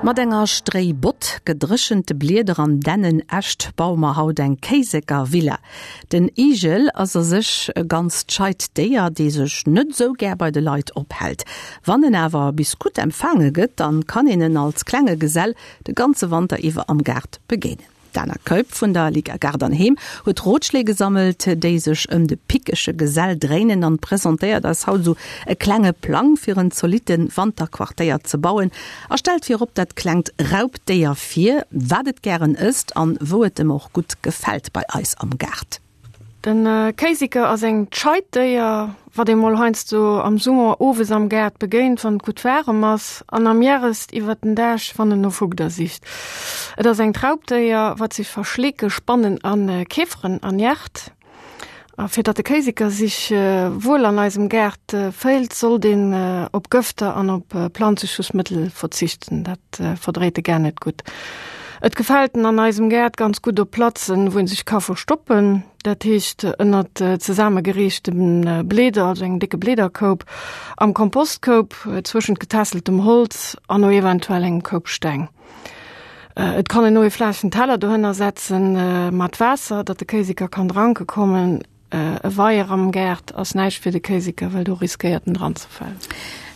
Mat enger Stréibott, gedréchente Blieder an Dännenäscht baue mer haut eng Kéiseker Villa. Den Igel ass a sech e ganzt scheit Déier, dee sech net esou gär bei de Leit ophält. Wann en awer bis gutt empfaange gëtt, dann kann een en als klenge Gesell de ganze Wanter iwwer am Gaart begéinen. D'Dana Keup vun der Liga Gaart an Heem huet Rotschléi gesammelt, déi sech ëm de pickege Gesell dréinen an presentéiert eis haut esou e klenge Plang fir en zolitte Wanterquartéier ze bauen a stellt virop dat klengt Raubdéier vir, wat et gären ësst an wou et em och gutt gefält bei eis am Gaart. Den Kéiseker ass eng scheit Déier, wat ee mol heiansdo am Summer owes am Gaart begéint, wann et gutt waarem ass, an am Hierest iwwert den Dag, wann en no Fugder sicht. Et ass engt Raubdéier, wat sech va Schleeke, Spannen a Käferen ernährt. A fir datt de Kéiseker sich wuel an eisem Gaart féilt, sollt een op Gëfter an op Planzeschussmëttel verzichten. Dat verdréit e gar net gutt. Et gefält en an eisem Gaart ganz gutt op Platzen, wou en sech ka verstoppen, dat heescht ënnert zesaammegereechte Bleeder, also engem décke Bleederkoup, am Kompostkoup, zwëschent getässeltem Holz an o eventuell engem Koup Steng. Et kann een o e flaachen Teller dohënner setzen mat Waasser, datt de Kéiseker kann dranke kommen. E Weier am Gaart ass näischt fir de Kéiseker, well do riskéiert en dran ze falen.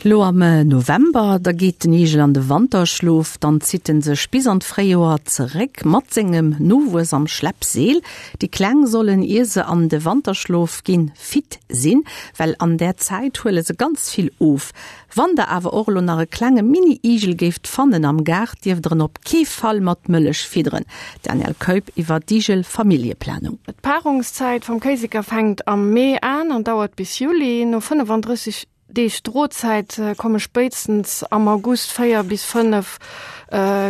Lo am November, da geet den Igel an de Wanterschlof, dann zitt en sech bis an d'Fréijoer zeréck mat sengem Nowuess am Schleppseel. Déi Kleng sollen, ier se an de Wanterschlof ginn, fit sinn, well an där Zäit huele se ganz vill of. Wann der awer och elo nach e klenge Mini-Igel géift fannen am Gaart, dierft der en op kee Fall mat Mëllech fidderen. Danièle Keup iwwer d'Igel-Familljeplanung. D'Paarungszäit vum Kéiseker fänkt am Mee an an dauert bis Juli. No 35 Deeg Drozäit komme spéitstens am August 4 bis 5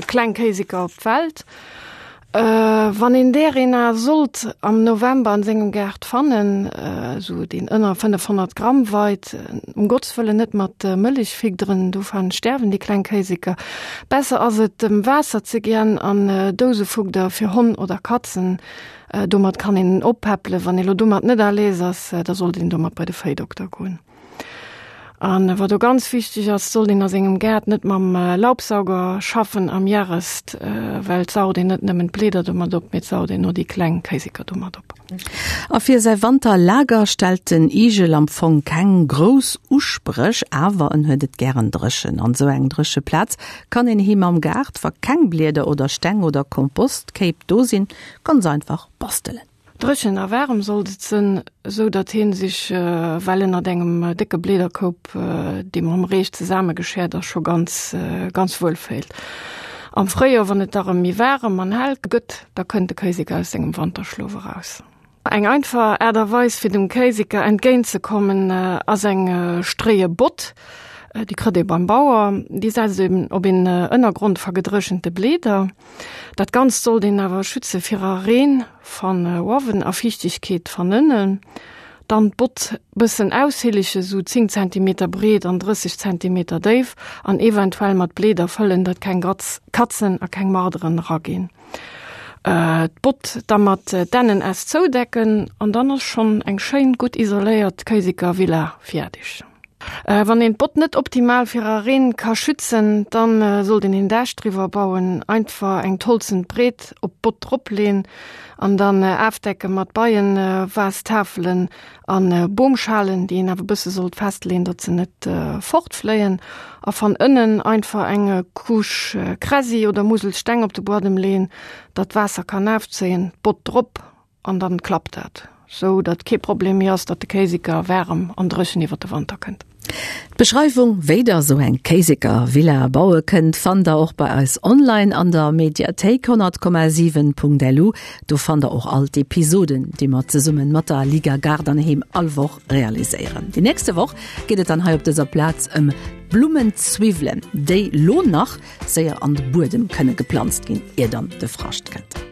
kleng Kéiseker op d'Welt. Wann een där een a sollt am November an sengem Gaart fannen, esou deen ënner 500 Gramm weit, um Gotts Wëllen net mat Mëllech fidderen, dovun sterwen déi kleng Kéiseker. Besser ass et em Waasser ze gien an Dousefugder fir Honn oder Katzen, domat kann een en oppäppelen. Wann ee lo domat net à l'aise ass, da sollt een domat bei de Véidokter goen. An wat o ganz wichteg ass, sollt een a sengem Gaart net mam Laubsauger schaffen am Järest, well et saugt een net nëmmen d'Blieder domat op, mee et saugt een o déi kleng Kéiseker domat op. A fir säi Wanterlager stellt den Igel am Fong keng grouss Uspréch, awer en huet et gären dréchen. An esou eng dréche Plaz kann een him am Gaart, wa keng Blieder oder Steng oder Kompostkéip do sinn, ganz einfach bastelen. Dréchen a waarem sollt et sënn, esou datt heen sich well ënnert engem décke Bleederkoup, dee mam Reech zesaammegeschäert ass, scho ganz, ganz wuel féilt. Am Fréijoer, wann et da rëm méi waarem an hell gëtt, da kënnt de Kéiseker aus sengem Wanterschlof eraus. Eng einfach Aart a Weis fir dem Kéiseker entgéint ze kommen, ass eng stréie Bott. Déi krëtt ee beim Bauer. Déi setzt een op een Ënnergrond va gedréchente Bleeder. Dat Ganzt sollt een awer schütze virer Reen van uawen a Fiichtegkeet van ënnen. Dann d'Bott bëssen aushillege, sou 10 Zentimeter breet an 30 Zentimeter déif an eventuell mat Bleeder fëllen, datt keng Katzen a keng Marderen eraginn. D'Bott da mat Dännenäst zoudecken an dann ass schonn eng schéin gutt isoléiert Kéiseker Villa fiärdeg. Wann een d'Bott net optimal fir a Reen ka schützen, dann sollt een een Daach driwwer bauen. Einfach eng Tolzen breet op d'Bott drop leen an dann aafdecken mat Beienvastafelen an Boomschalen, déi een awer bësse sollt festleen, datt se net fortfléien. A van ënnen einfach eng Couche Kräsi oder Muselsteng op de Buadem leen, datt d'Waasser kann aafzéien. D'Bott drop An dann klappt dat, sou datt kee Problem méi ass, datt de Kéiseker waarem an dréchen iwwer de Wanter kënnt. D'Beschreiwung, wéi der sou eng Kéiseker-Villa baue kënnt, fannt der och bei eis online an der Mediathéik 100,7.lu. Do fannt der och all d'Episoden, déi mer zesummen mat der Liga Gaart an Heem all Woch realiséieren. Déi nächste Woch geet et dann hei op dëser Plaz ëm Blummenzwiwwelen, déi lo nach séier an de Buedem kënne geplanzt ginn, ier dann de Frascht kënnt.